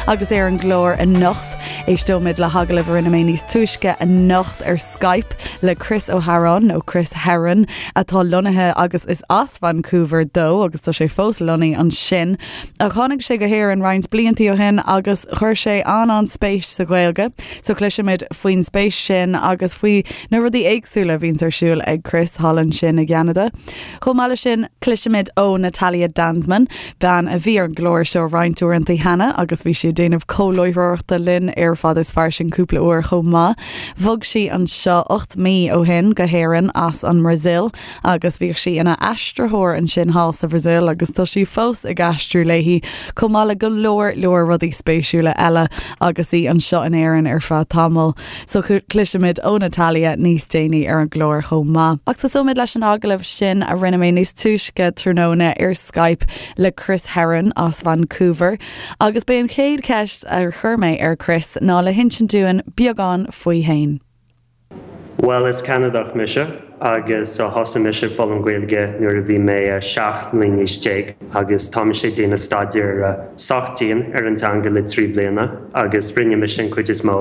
Agus ar an gclár anocht, éisteoimid le hagallamh a rinne mé níos túisce anocht ar Skype le Chris Ó hEaráin, nó Chris Herron, atá lonnaithe agus is as Vancouver dó agus tá sé fós lonnaithe ansin. Ach tháinig sé go hÉirinn roinnt bliantaí ó shin agus chuir sé an-an-spéis sa Ghaeilge. So cloisfimid faoin spéis sin agus faoi na rudaí éagsúla a bhíonns ar siúl ag Chris thall ansin i gCeanada. Chomh maith leis sin, cloisfimid ó Natalia Danzmann, bean a bhí ar an gclár seo roinnt uaireanta cheana agus bhí sí ag déanamh comhláithreoireachta linn ar Fada is Fairsing cúpla uair chomh maith. Bhog sí anseo 8 mí ó shin go hÉirinn as an mBrasaíl agus bhíodh sí ina aistritheoir ansin thall sa Bhrasaíl agus tá sí fós ag aistriú léi, chomh maith le go leor leor rudaí spéisiúla eile agus í anseo in Éirinn ar feadh tamaill. So cloisfimid ó Natalia níos déanaí ar an gclár chomh maith. Ach tosóimid leis an agallamh sin a rinne mé níos túisce tráthnóna ar Skype le Chris Herron as Vancouver. Agus b'é an chéad cheist a chuir mé ar Chris ná le hinsint dúinn beagán faoi fhéin. Bhuel, is Ceanadach mise agus thosaigh mise ag foghlaim Gaeilge nuair a bhí mé 17 mbliana d'aois agus tá mise ag déanamh staidéar sách dian ar an teanga le 3 bliana agus rinne mise an cuid is mó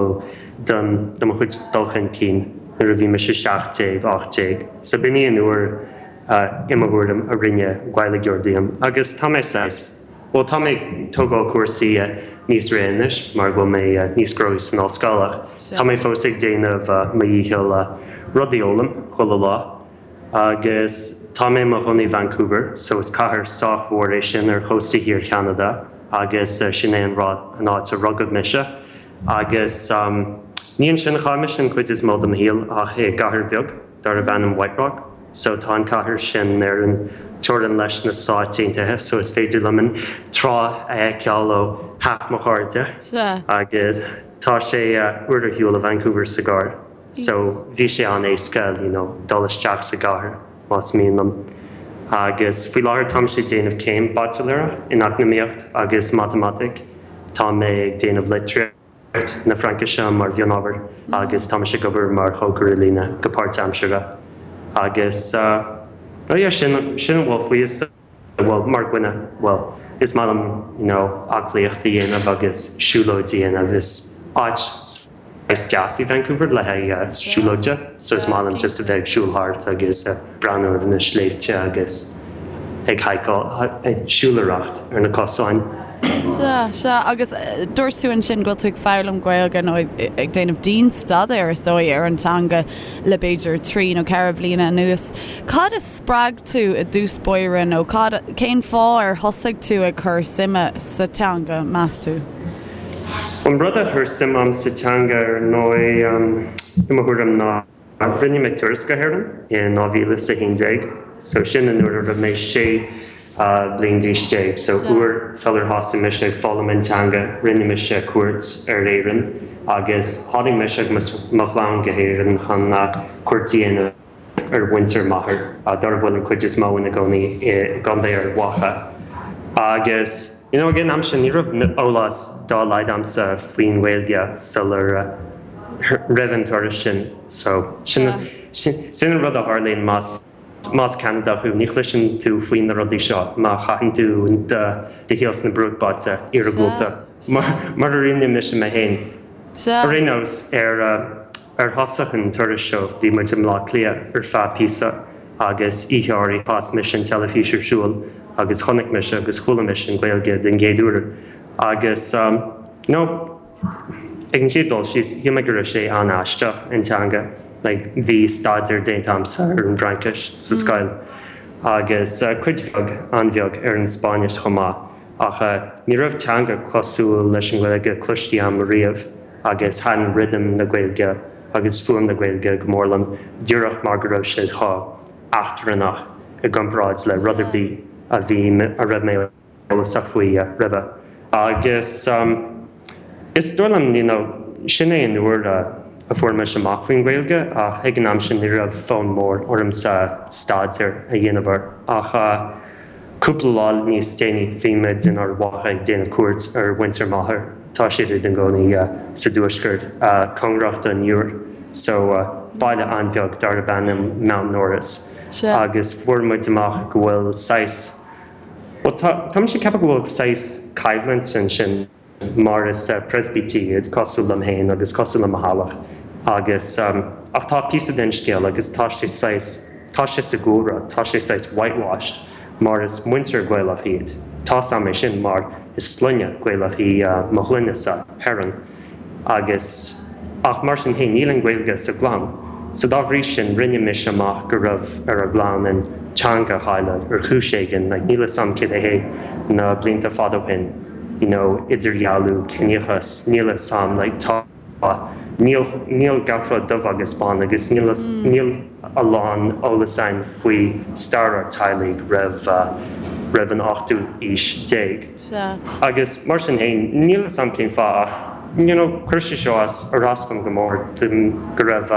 den de mo chuid dul chun cinn nuair a bhí mise 17, 18. So b'in í an uair i mo thuairim a rinne Gaeilgeoir díom agus tá mé saghas. Bhuel, tá mé ag tógáil cúrsaí níos réidh anois mar go bhfuil mé níos gnóthaí san ollscoil ach tá mé fós ag déanamh mo dhícheall rudaí a fhoghlaim chuile lá. Agus tá mé i mo chónaí i Vancouver so is cathair sách mhór é sin ar chósta thiar Cheanada agus sin é an rud, an áit a rugadh mise. Agus ní ansin a chaith mise an chuid is mó de mo shaol ach i gcathair bheag. darb ainm White Rock. So tá an cathair sin ar an teorainn leis na Stáit Aontaithe so is féidir liom an trá a fheiceáil ó theach mo chairde. Agus tá sé uair ar shiúl ó Vancouver sa gcarr so bhí sé an-éasca you know dul isteach sa gcathair más mian liom. Agus faoi láthair táimse ag déanamh céim baitsiléireach in Eacnamaíocht agus Matamaitic. Tá mé ag déanamh litríocht. na Fraincise mar mhionábhar agus tá mise ag obair mar chócaire líne go páirtaimseartha agus oh yeah sin sin a bhfuil faoi is bhuel mar dhuine bhuel is maith liom you know aclaíocht a dhéanamh agus siúlóid a dhéanamh is áit saghas deas í Vancouver le haghaidh siúlóide so is maith liom just a bheith ag siúl thart agus breathnú ar na sléibhte agus ag haiceáil ag siúlóireacht ar na cosáin. Sea, sea, agus dúirt tú ansin go bhfuil tú ag foghlaim Gaeilge nó ag déanamh dian-staidéir, is dóigh, ar an teanga le b'fhéidir trí nó ceithre bhliana anuas. Cad a spreag tú i dtús báire nó cad, cén fáth ar thosaigh tú ag cur suime sa teanga, meas tú? An rud a chuir suim a'm sa teanga ar ndóigh, i mo thuairim, ná Rinne mé turas go hÉirinn in 2011 so sin an uair a raibh mé 16 bliain d'aois so uair sular thosaigh mise ag foghlaim an teanga rinne mise cuairt ar Éirinn agus tháinig mise agus mo chlann go hÉirinn chun cuairt a dhéanamh ar mhuintir m'athar dar a bhfuil an cuid is mó ina gcónaí i gContae Ard Mhacha agus you know ag an am sin ní raibh eolas dá laghad a'msa faoin nGaeilge sular roimh an turas sin. So, sin sin an rud a tharlaíonn más más Ceanadach thú, ní chloiseann tú faoi na rudaí seo má chaitheann tú do do shaol sna bruachbailte iargúlta, mar mar a rinne mise mé féin. Ar aon nós, ar ar thosach an turais seo bhí muid i mBleá Cliath ar feadh píosa agus oíche áirithe chas mise an teilifís ar siúl agus chonaic mise agus chuala mise an Ghaeilge den gcéad uair agus you know, Ag an chéad dul síos, shíl mé go raibh sé an-aisteach, an teanga. Like, bhí staidéar déanta a'msa ar an bhFraincis sa scoil agus cuid bheag, an-bheag, ar an Spáinnis chomh maith ach ní raibh teanga cosúil leis an nGaeilge cloiste a'm riamh agus thaitin rithim na Gaeilge agus fuaim na Gaeilge go mór liom díreach mar go raibh sé chomh eachtrannach i gcomparáid le rud ar bith a bhí, a raibh mé eolasach faoi roimhe. Agus is dóigh liom, you know, sin é an uair a fuair mise amach faoin Ghaeilge ach ag an am sin ní raibh fonn mór ormsa staidéar a dhéanamh air. Ach cúpla lá níos déanaí bhí muid in Ard Mhacha ag déanamh cuairt ar mhuintir m'athar, tá siad ina gcónaí sa dtuaisceart, cóngarach don Iúr, so baile an-bheag darb ainm Mountnorris. Agus fuair muid amach go bhfuil saghas. Bhuel, tá, tá mise ag ceapadh go bhfuil saghas coimhlint ansin. Mar is Preispitéigh iad, cosúil liom féin agus cosúil le mo theaghlach agus, ach tá píosa den scéal agus tá sé saghas, tá sé sa gcúlra, tá sé saghas whitewashed mar is muintir Gaelach iad. Tá's a'm é sin mar is sloinne Gaelach í mo shloinne-sa, Herron. Agus, ach mar sin féin, níl an Ghaeilge sa gclann. So dá bhrí sin, rinne mise amach go raibh ar an gclann an teanga a chailleadh ar chúis éigin, like níl 'fhios a'm céard é na blianta fada ó shin, you know, idirdhealú, ciníochas, níl 'fhios a'm, like tá, níl, níl gach rud dubh agus bán agus níl, níl a lán eolas a'inn faoi stair ár teaghlaigh roimh, roimh an ochtú aois déag. Sea. Agus mar sin féin, níl 'fhios a'm cén fáth ach, you know, chuir sé seo as, ar as dom go mór, go raibh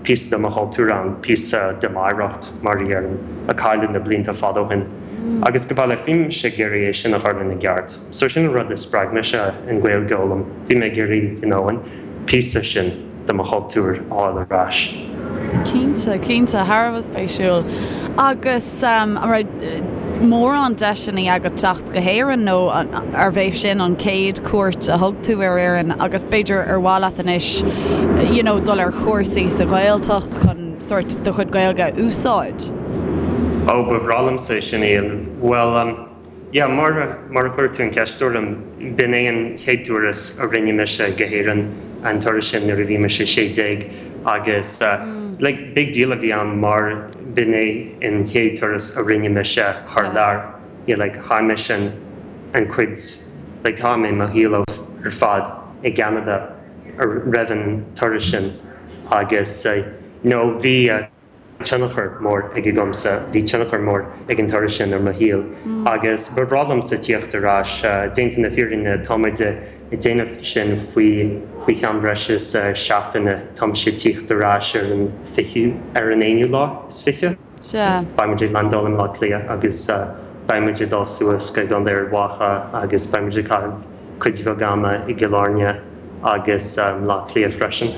píosa de mo chultúr ann, píosa de m'oidhreacht, mar a déarfainn, a cailleadh na blianta fada ó shin. Agus go baileach, bhí mise ag iarraidh é sin a chur ina gceart. So sin an rud a spreag mise an Ghaeilge a fhoghlaim. Bhí mé ag iarraidh, you know, an píosa sin de mo chultúr a fháil ar ais. Cinnte, cinnte, thar a bheith spéisiúil. Agus an raibh mórán deiseanna agat teacht go hÉirinn nó arbh é sin an chéad cuairt a thug tú ar Éirinn agus b'fhéidir ar mhaith leat anois you know dul ar chúrsaí sa Ghaeltacht chun sórt do chuid Gaeilge a úsáid? Ó, ba bhreá liomsa é sin a dhéanamh. Bhuel, Yeah, mar mar a chuir tú an cheist orm, b'in é an chéad turas a rinne mise go hÉirinn, an turas sin nuair a bhí mise 16 agus like big deal a bhí ann mar b'in é an chéad turas a rinne mise thar lear. Yeah, like chaith mise an an cuid like tá mé mo shaol ar fad i gCeanada roimh an turas sin agus you know bhí tionchar mór aige agamsa, bhí tionchar mór ag an turas sin ar mo shaol agus ba bhreá liomsa tíocht ar ais. Déanta na fírinne, tá muid ag déanamh sin faoi faoi cheann breis is seachtaine, tá mise ag tíocht ar ais ar an fichiú, ar an aonú lá is fiche. Sea. Beidh muid ag landáil i mBleá Cliath agus beidh muid ag dul suas go gContae Ard Mhacha agus beidh muid ag caitheamh cuid bheag ama i gCill Airne agus mBleá Cliath freisin.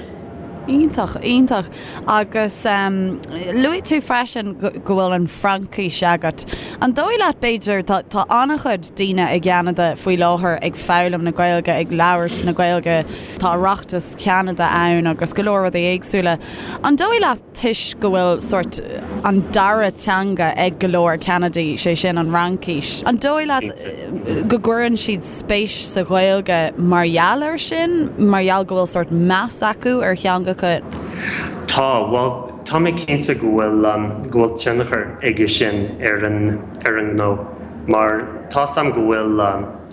Iontach, iontach. Agus luaigh tú freisin go bhfuil an Fhraincis agat. An dóigh leat, b'fhéidir, tá tá an-chuid daoine i gCeanada faoi láthair ag foghlaim na Gaeilge, ag labhairt na Gaeilge, tá Oireachtas Cheanada ann agus go leor rudaí éagsúla. An dóigh leat, toisc go bhfuil sórt an dara teanga ag go leor Ceanadaigh, sé sin an Fhraincis. An dóigh leat go gcuireann siad spéis sa Ghaeilge mar gheall air sin, mar gheall go bhfuil sórt meas acu ar theangacha? Tá, bhuel, tá mé cinnte go bhfuil, go bhfuil tionchar aige sin ar an, ar an ngnó mar tá's a'm go bhfuil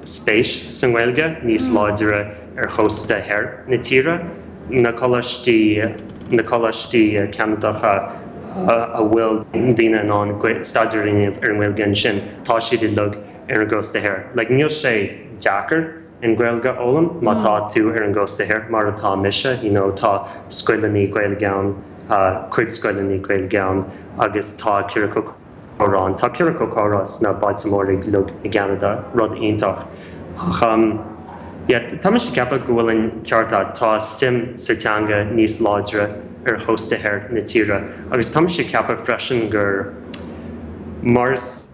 spéis sa nGaeilge níos láidre ar chósta thoir na tíre. na coláistí, na coláistí Ceanadacha a bhfuil daoine in ann staidéar a dhéanamh ar an nGaeilge ansin, tá siad uilig ar an gcósta thoir. Like, níl sé deacair an Ghaeilge a fhoghlaim má tá tú ar an gcósta thoir, mar atá mise, you know, tá scoileanna Gaeilge ann, cuid scoileanna Gaeilge ann agus tá ciorcal comhrá ann. Tá ciorcal comhrá sna bailte móra uilig i gCeanada, rud iontach. Ach yeah, tá mise ag ceapadh go bhfuil an ceart agat, tá suim sa teanga níos láidre ar chósta thoir na tíre agus tá mise ag ceapadh freisin gur mar is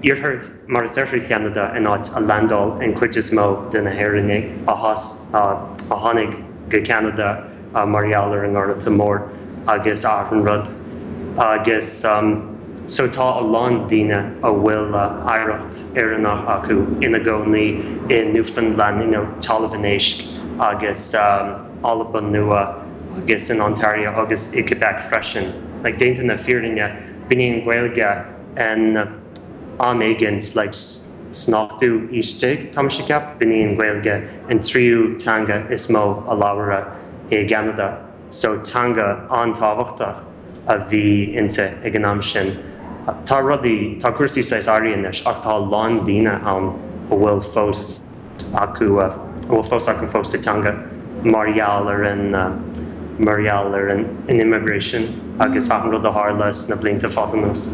iarthar, mar is oirthear Cheanada an áit a landáil an chuid is mó de na hÉireannaigh a a tháinig go Ceanada mar gheall ar an nGorta Mór agus achan rud agus so tá a lán daoine a bhfuil oidhreacht Éireannach acu ina gcónaí i Newfoundland, you know Talamh an Éisc agus Albain Nua agus in Ontario agus i Quebec freisin. Like déanta na fírinne, b'in í an Ghaeilge in am éigint like san ochtú aois déag, tá mise ag ceapadh, b'in í an Ghaeilge an tríú teanga is mó a labhradh i gCeanada so teanga an-tábhachtach a bhí inti ag an am sin. Tá rudaí, tá cúrsaí saghas athraithe anois ach tá a lán daoine ann a bhfuil fós. acu, a bhfuil fós acu fós sa teanga mar gheall ar an, mar gheall ar an immigration agus achan rud a tharla sna blianta fada anuas.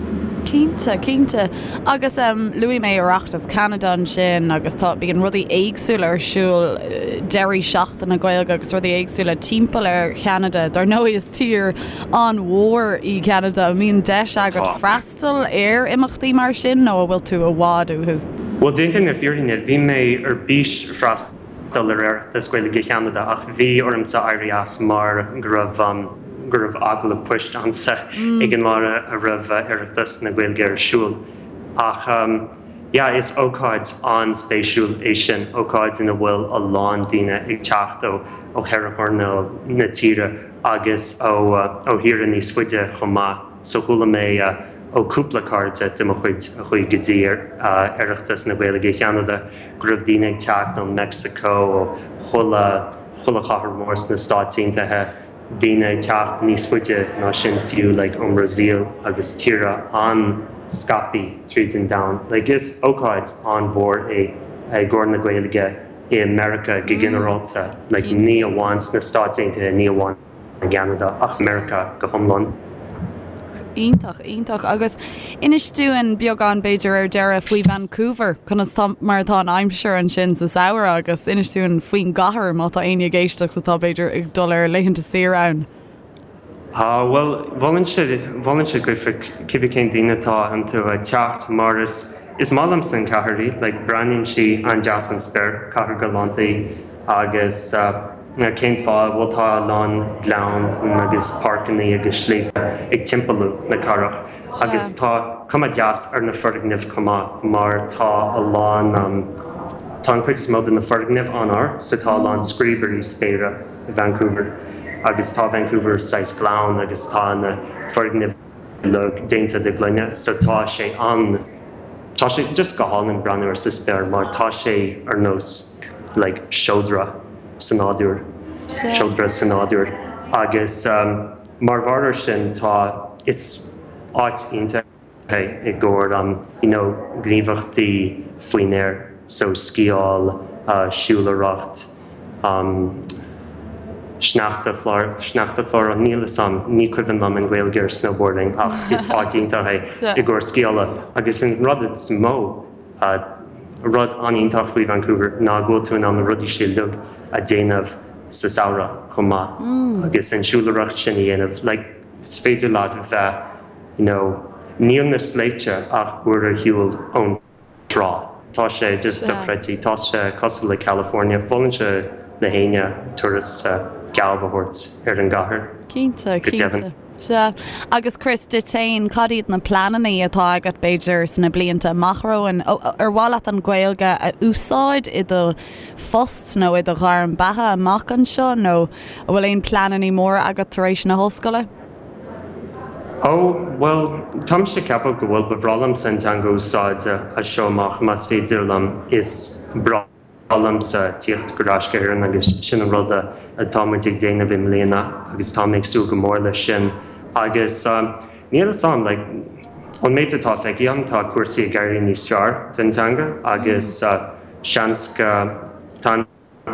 Cinnte, cinnte. Agus luaigh mé Oireachtas Cheanada ansin agus tá, bíonn rudaí éagsúla ar siúl, deirí seachtaine Gaeilge agus rudaí éagsúla timpeall ar Cheanada. Dar ndóigh is tír an-mhór í Ceanada. An mbíonn deis agat freastal freastal ar imeachtaí mar sin nó an bhfuil tú i bhfad uathu? Bhuel, déanta na fírinne, bhí mé ar bís freastal. freastal ar Oireachtas Gaeilge Cheanada ach bhí ormsa éirí as mar go raibh go raibh agallamh poist a'msa ag an lá a raibh Oireachtas na Gaeilge ar siúl. Ach yeah, is ócáid an-spéisiúil é sin, ócáid ina bhfuil a lán daoine ag teacht ó ó cheithre choirnéal na tíre agus ó ó thíortha níos faide chomh maith. So chuala mé ó cúpla cairde de mo chuid a chuaigh go dtí Oireachtas na Gaeilge Cheanada go raibh daoine ag teacht ó Meicsiceo, ó chuile, chuile chathair mhór sna Stáit Aontaithe, daoine ag teacht níos faide ná sin fiú, like ón mBrasaíl agus tíortha an-scaipthe tríd an domhan. Like is ócáid an-mhór é i gcomhair na Gaeilge i Meiriceá go ginearálta, like ní amháin sna Stáit Aontaithe, ní amháin. i gCeanada ach Meiriceá go hiomlán. Iontach, iontach. Agus inis dúinn beagán b'fhéidir ar deireadh faoi Vancouver, conas tá, mar atá an aimsir ansin sa samhradh agus inis dúinn faoin gcathair má tá éinne ag éisteacht atá b'fhéidir ag dul ar laethanta saoire ann. Ah, bhuel, mholfainnse, mholfainnse daofa cibé cén daoine atá iontu teacht mar is, is maith liomsa an chathair í, like breathnaíonn sí an-deas ón spéir, cathair galánta í agus eh, Cén fáth? Bhuel tá a lán gleann agus páirceanna agus sléibhte ag timpeallú na cathrach agus tá cuma deas ar na foirgnimh chomh maith mar tá a lán, tá an cuid is mó de na foirgnimh an-ard so tá a lán scríobairí spéire i Vancouver agus tá Vancouver saghas gleann agus tá na foirgnimh uilig déanta de ghloine so tá sé an, tá sé just go hálainn breathnú air sa spéir mar tá sé ar nós like seodra sa nádúr, seodra sa nádúr agus mar bharr ar sin tá, is áit iontach é i gcomhair you know gníomhaíochtaí faoin aer so sciáil, siúlóireacht. Sneachta sneachta chlár níl 'fhios a'm, ní cuimhin liom an Ghaeilge ar snowboarding ach is áit iontach é i gcomhair sciála agus an rud is mó, rud an-iontach faoi Vancouver ná go bhfuil tú in ann na rudaí sin uilig a déanamh sa samhradh chomh maith agus an siúlóireacht sin a dhéanamh like is féidir leat bheith you know níl na sléibhte ach uair ar shiúl ón trá. Tá sé just dochreidte. Tá sé cosúil le California. Mholfainnse le héinne turas geábh a thabhairt ar an gcathair. Cinnte, Go deimhin. cinnte. Sea. Agus Chris, duit féin, cad iad na pleananna atá agat, b'fhéidir, sna blianta amach romhainn? Ar mhaith leat an Ghaeilge a úsáid i do phost nó i do ghairm beatha amach anseo nó an bhfuil aon pleananna móra agat tar éis na hollscoile? Ó, bhuel, táimse ag ceapadh go bhfuil, ba bhreá liomsa an teanga a úsáid as seo amach más féidir liom. Is breá liomsa tíocht ar ais go hÉirinn agus sin an rud atá muid ag déanamh i mbliana agus tá mé ag súil go mór leis sin. Agus níl 'fhios a'm, like, ón méid atá feicthe agam tá cúrsaí ag éirí níos fearr don teanga agus seans go, tá an.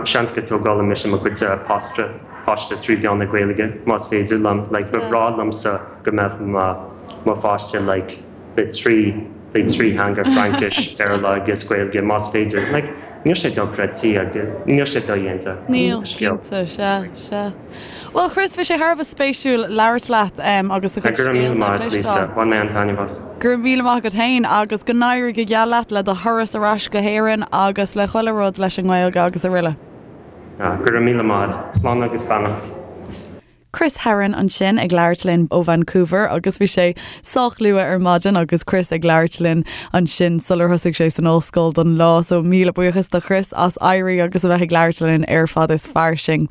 Seans go dtógálfaidh mise mo chuid páiste páiste trí mheán na Gaeilge más féidir liom. Like ba bhreá liomsa go mbeadh mo mo pháiste like le trí le trí theanga Fraincis, Béarla agus Gaeilge más féidir. Like níl sé dochreidte agus níl sé dodhéanta. Níl, cinnte, sea, sea. Bhuel Chris, bhí sé thar a bheith spéisiúil labhairt leat agus do chuid scéalta a chloisteáil. Go raibh míle maith agat Lisa, bhain mé an-taitneamh as. Go raibh míle maith agat féin agus go n-éirí go geal leat le do thuras ar ais go hÉirinn agus le chuile rud leis an nGaeilge agus araile. Go raibh míle maith agat. Slán agus beannacht. Chris Herron ansin ag labhairt linn ó Vancouver agus bhí sé sách luath ar maidin agus Chris ag labhairt linn ansin sular thosaigh sé san ollscoil don lá so míle buíochas do Chris as éirí agus a bheith ag labhairt linn ar Fad is Fairsing.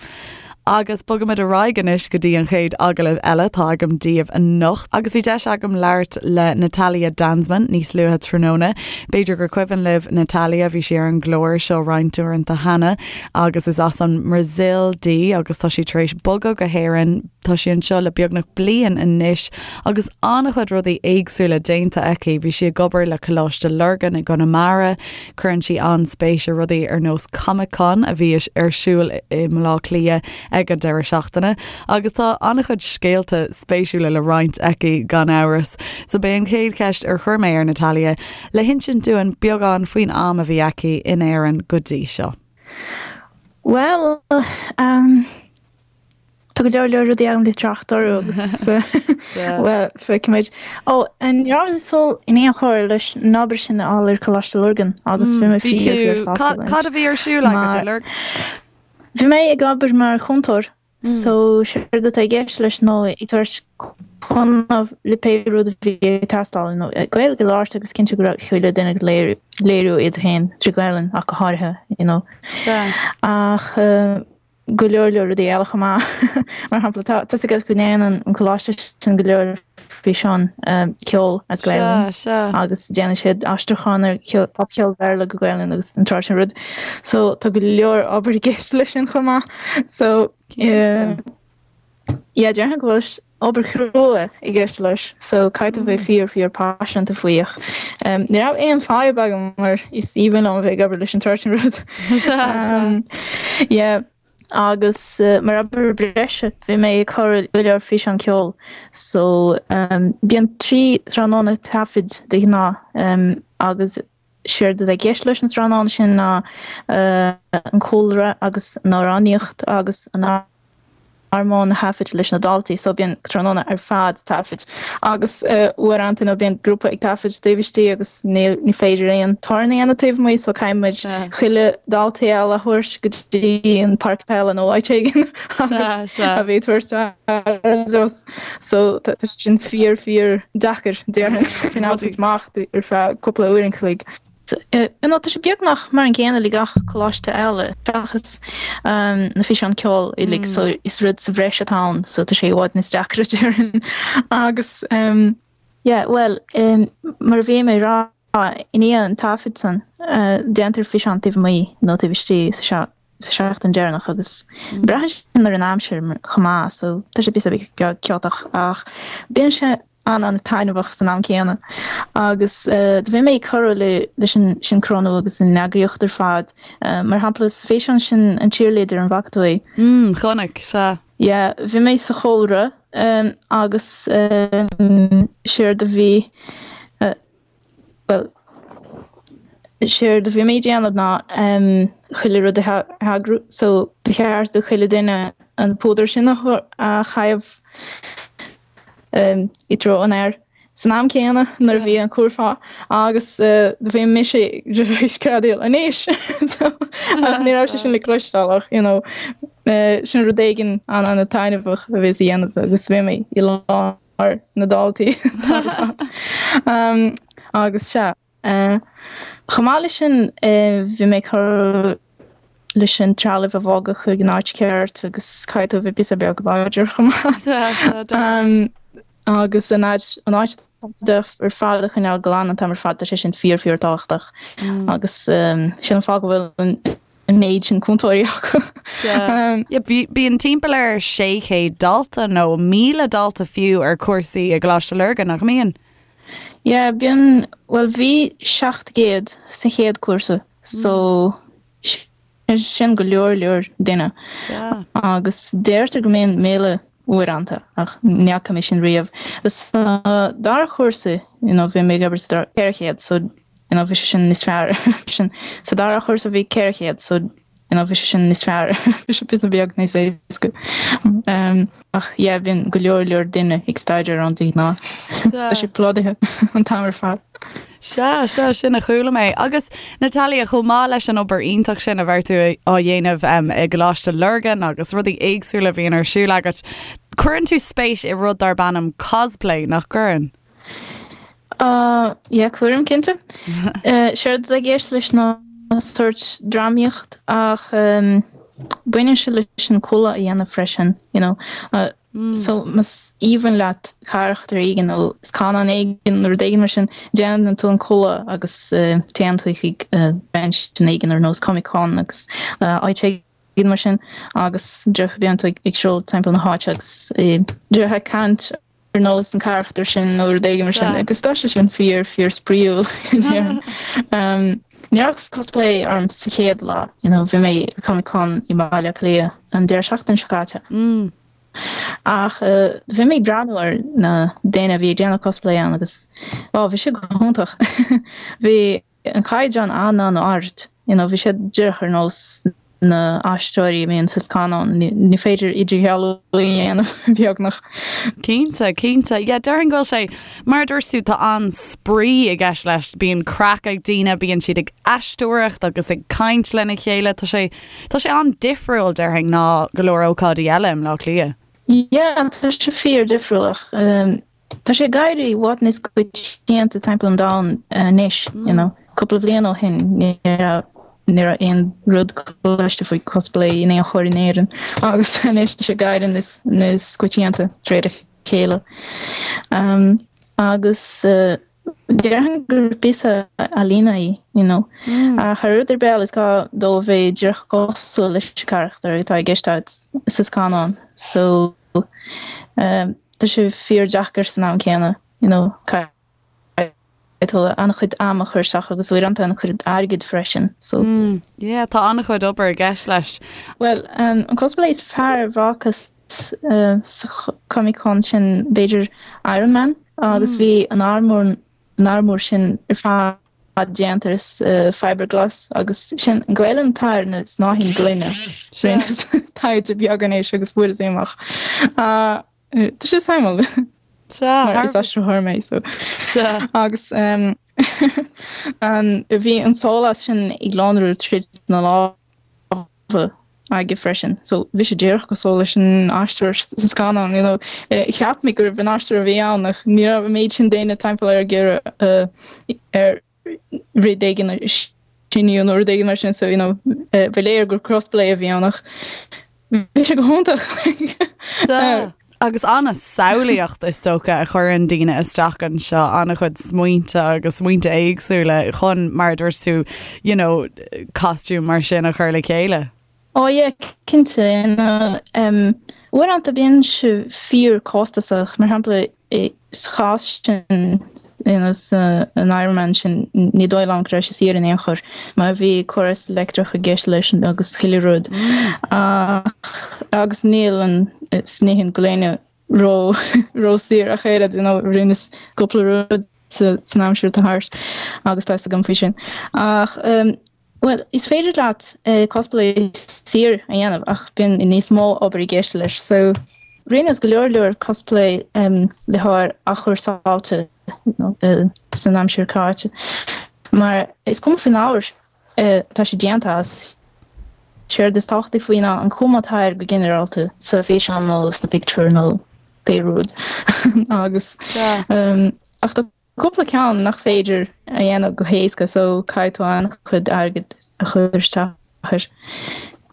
Agus bogaimid ar aghaidh anois go dtí an chéad agallamh eile atá agam daoibh anocht. Agus bhí deis agam labhairt le Natalia Danzmann níos luaithe tráthnóna. B'fhéidir gur cuimhin libh Natalia, bhí sí ar an gclár seo roinnt uaireanta cheana agus is as an mBrasaíl di agus tá sí tar éis bogadh go hÉirinn. Tá sí anseo le beagnach bliain anois agus an-chuid rudaí éagsúla déanta aici. Bhí sí ag obair le Coláiste Lurgan i gConamara, Cuireann sí an-spéis i rudaí ar nós Comic Con a bhí ar siúl i mBaile Átha Cliath ag an deireadh seachtaine agus tá an-chuid scéalta spéisiúla le roinnt aici gan amhras. So b'é an chéad cheist ar chuir mé ar Natalia le hinsint dúinn beagán faoin am a bhí aici in Éirinn go dtí seo. Bhuel, um. Tá go leor leor rudaí agam le trácht orthu agus bhuel, feicfimid. Ó, ní rabhas ag súil in aon chor leis an obair sin a fháil ar Coláiste Lurgan agus bhí mé fíor fíor sásta leis. Cad a bhí ar siúl agat i Lurgan? Bhí mé ag obair mar chúntóir so séard atá i gceist leis ná ag tabhairt cúnamh le pé rud a bhí ag teastáil, you know, Gaeilge a labhairt agus cinntiú go raibh chuile duine ag léiriú iad féin trí Ghaelainn ach go háirithe, you know. Ach go leor leor rudaí eile chomh maith. Mar shampla, tá a fhios agat go ndéanann an coláiste sin go leor físeán ceoil as Gaelainn agus déanann siad aistriúchán ar popcheol Bhéarla go Gaelainn agus an tsórt sin rud. So tá go leor obair i gceist leis sin chomh maith. So yeah, déarfainn go bhfuil obair chrua i gceist leis so caithfidh tú bheith fíor fíor paiseanta faoi ach ní raibh aon fadhb agam mar is aoibhinn liom a bheith ag obair leis an tsórt sin rud. Yeah agus mar obair breise bhí mé ag cur go leor físeán ceoil so bíonn 3 tráthnóna taifid de ghnáth agus Séard atá i gceist leis na tráthnóna sin ná an cúlra agus an amhránaíocht agus an armóin a thaifead leis na daltaí so bíonn tráthnóna ar fad taifid agus uaireanta nó bíonn grúpa ag taifead taobh istigh agus ní ní féidir aon torann a dhéanamh taobh amuigh so caithfidh muid chuile daltaí eile a thabhairt go dtí an páirc peile nó áit éigin agus a bheith ag tabhairt aire dóibh. So tá sin fíor fíor deacair déarfainn coinneáil amach ar feadh cúpla uair an chloig. You know tá sé beagnach mar an gcéanna le gach coláiste eile seachas na físeáin ceoil uilig so is rud sa bhreis atá ann so tá sé i bhfad níos deacra déarfainn agus yeah bhuel mar a bhí mé ag rá i ndiaidh an taifead san déantar físeán taobh amuigh nó taobh istigh sa sa seachtain deireanach agus braitheann sin ar an aimsir chomh maith so tá sé píosa beag ciotach ach bíonn sé an-an-taitneamhach san am céanna agus do bhí mé ag cur le leis an sioncrónú agus an eagraíocht ar fad mar shampla sa físeán sin an cheerleader an bhfaca tú é? Mm, chonaic, sea. Yeah, bhí mé sa chúlra agus séard a bhí Bhuel, séard a bhí mé ag déanamh ná chuile rud a eagrú so ba cheart do chuile duine an púdar sin a chaitheamh i dtreo an fhear san am céanna nuair a bhí an curfá agus do bhí mise ag screadaíl anois! So ní raibh sé sin le cloisteáil ach you know sin rud éigin an-an-taitneamhach a bhíos a dhéanamh agus bhí mé i lár na daltaí agus sea. Chomh maith leis sin bhí mé ag cur leis an trealamh a bhogadh chuig an áit cheart agus caithfidh tú a bheith píosa beag láidir chomh maith. Agus an áit an áit ar fad a choinneáil glan an t-am ar fad tá sé sin fíor fíor tábhachtach agus sin an fáth go bhfuil an an méid sin cúntóirí acu. Bíonn timpeall ar 600 dalta nó 1,000 dalta fiú ar chúrsaí i gColáiste Lurgan, nach mbíonn? Yeah, bíonn, bhuel bhí 700 sa chéad cúrsa so sin go leor leor duine agus deirtear go mbíonn 1,000 uaireanta ach ní fhaca mé sin riamh. Sa dara chúrsa you know bhí mé ag obair sa dara 400 so you know bhí sé sin níos fearr sin sa dara chúrsa bhí 400 so you know bhí sé sin níos fearr bhí sé píosa beag níos éasca um, ach yeah bíonn go leor leor duine ag staidéar ann de ghnáth tá sé plódaithe an t-am ar fad. Sea, sea, sin a chuala mé. Agus Natalia, chomh maith leis an obair iontach sin a bheir tú á dhéanamh i gColáiste Lurgan agus rudaí éagsúla a bhíonn ar siúl agat, cuireann tú spéis i rud darb ainm cosplay, nach gcuireann? Uh, yeah, cuirim, cinnte. Séard atá i gceist leis ná sórt drámaíocht ach um, baineann sé leis an culaith a dhéanamh freisin, you know. Uh, So más aoibhinn leat carachtar éigin nó scannán éigin nó rud éigin mar sin, déanann tú an culaith agus téann tú chuig convention éigin ar nós Comic Con agus áit éigin mar sin agus díreach bíonn tú ag siúl timpeall na háite agus díreach ag caint ar nós an carachtar sin nó rud éigin mar sin agus tá sé sin fíor fíor spraíúil. Ní raibh cosplay orm sa chéad lá, you know, bhí mé ar Comic Con i mBaile Átha Cliath an deireadh seachtaine seo caite. Ach bhí mé ag breathnú ar na daoine a bhí ag déanamh cosplay ann agus wow bhí sé go hiontach. Bhí an caighdeán an-an-ard, you know, bhí siad díreach ar nós. Na haisteoirí a bhíonn sa scannán, ní féidir idirdhealú a dhéanamh, beagnach. Cinnte, cinnte. Yeah, déarfainn go bhfuil sé, mar a dúirt tú, tá an-spraoi i gceist leis. Bíonn craic ag daoine, bíonn siad ag aisteoireacht agus ag caint lena chéile. Tá sé, tá sé an-difriúil, déarfainn, ná go leor ócáidí eile i mBleá Cliath. Yeah, tá sé fíor-difriúil ach Tá sé ag éirí i bhfad níos coitianta timpeall an domhain anois, you know. Cúpla bliain ó shin ní raibh ní raibh aon rud cloiste faoi cosplay in aon chor in Éirinn agus anois tá sé ag éirí níos níos coitianta de réir a chéile. Agus déarfainn gur píosa ealaíne í, you know. Ach thar rud ar bith eile is gá dó a bheith díreach cosúil leis an charachtar atá i gceist agat sa scannán. So. Tá sé fíor-deacair san am céanna, you know, caithfidh tú an-chuid ama a chur isteach agus uaireanta an-chuid airgid freisin, so. Mm, yeah, tá an-chuid obair i gceist leis. Bhuel, an cosplay is fearr a bhfacthas sa Comic Con sin b'fhéidir Iron Man agus bhí an armúr, an armúr sin ar fad déanta as fiberglass agus sin an Ghaelainn atá ar na snáithín gloine. Rinneas taighde beag anois agus fuaireas é amach. Tá sé suimiúil. Mar is aistritheoir mé so. Agus bhí an sólás sin ag lonrú tríd na lámha aige freisin. So bhí sé díreach cosúil leis an aisteoir sa scannán, you know. Cheap mé gurbh an aisteoir a bhí ann ach ní raibh an méid sin daoine timpeall air ag iarraidh air rud éigin a shíniú nó rud éigin mar sin so, you know, ba léir gur cosplay a bhí ann ach bhí sé go hiontach. Sea. Agus an-samhlaíocht is dócha a chuireann daoine isteach anseo, an-chuid smaointe agus smaointe éagsúla chun, mar a dúirt tú, you know, costume mar sin a chur le chéile. Oh yeah, cinnte. You know, um, uaireanta bíonn sé fíor costasach, mar shampla sa chás sin, you know, sa an Iron Man sin, ní dóigh liom go raibh sé saor in aon chor, mar bhí córas leictreach i gceist leis agus chuile rud. Ach, agus níl an snáithín gloine ró ró saor ach oiread, you know, rinneas cúpla rud sa san aimsir atá thart agus tá fhios agam faoi sin. Ach, um, Bhuel, is féidir leat cosplay saor a dhéanamh ach bíonn níos mó obair i gceist leis. So, rinneas go leor leor cosplay le hábhar athchúrsáilte san aimsir caite mar is cuma faoin ábhar atá sé déanta as. Séard is tábhachtaí faoi ná an chuma atá air go ginearálta sa físeán nó sna pictiúir nó pé rud agus ach tá Cúpla ceann nach féidir a dhéanamh go héasca so caithfidh tú an-chuid airgid a chur isteach air.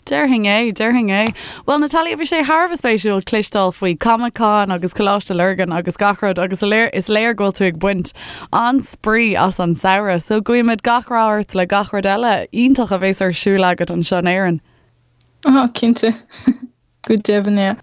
Déarfainn é, déarfainn é. Bhuel Natalia, bhí sé thar a bheith spéisiúil cloisteáil faoi Comic Con agus Coláiste Lurgan agus gach rud agus is léir go bhfuil tú ag baint an-spraoi as an samhradh. So guímid gach rath ort le gach rud eile iontach a bhéas ar siúl agat anseo in Éirinn. Oh, cinnte. Go deimhin, yeah.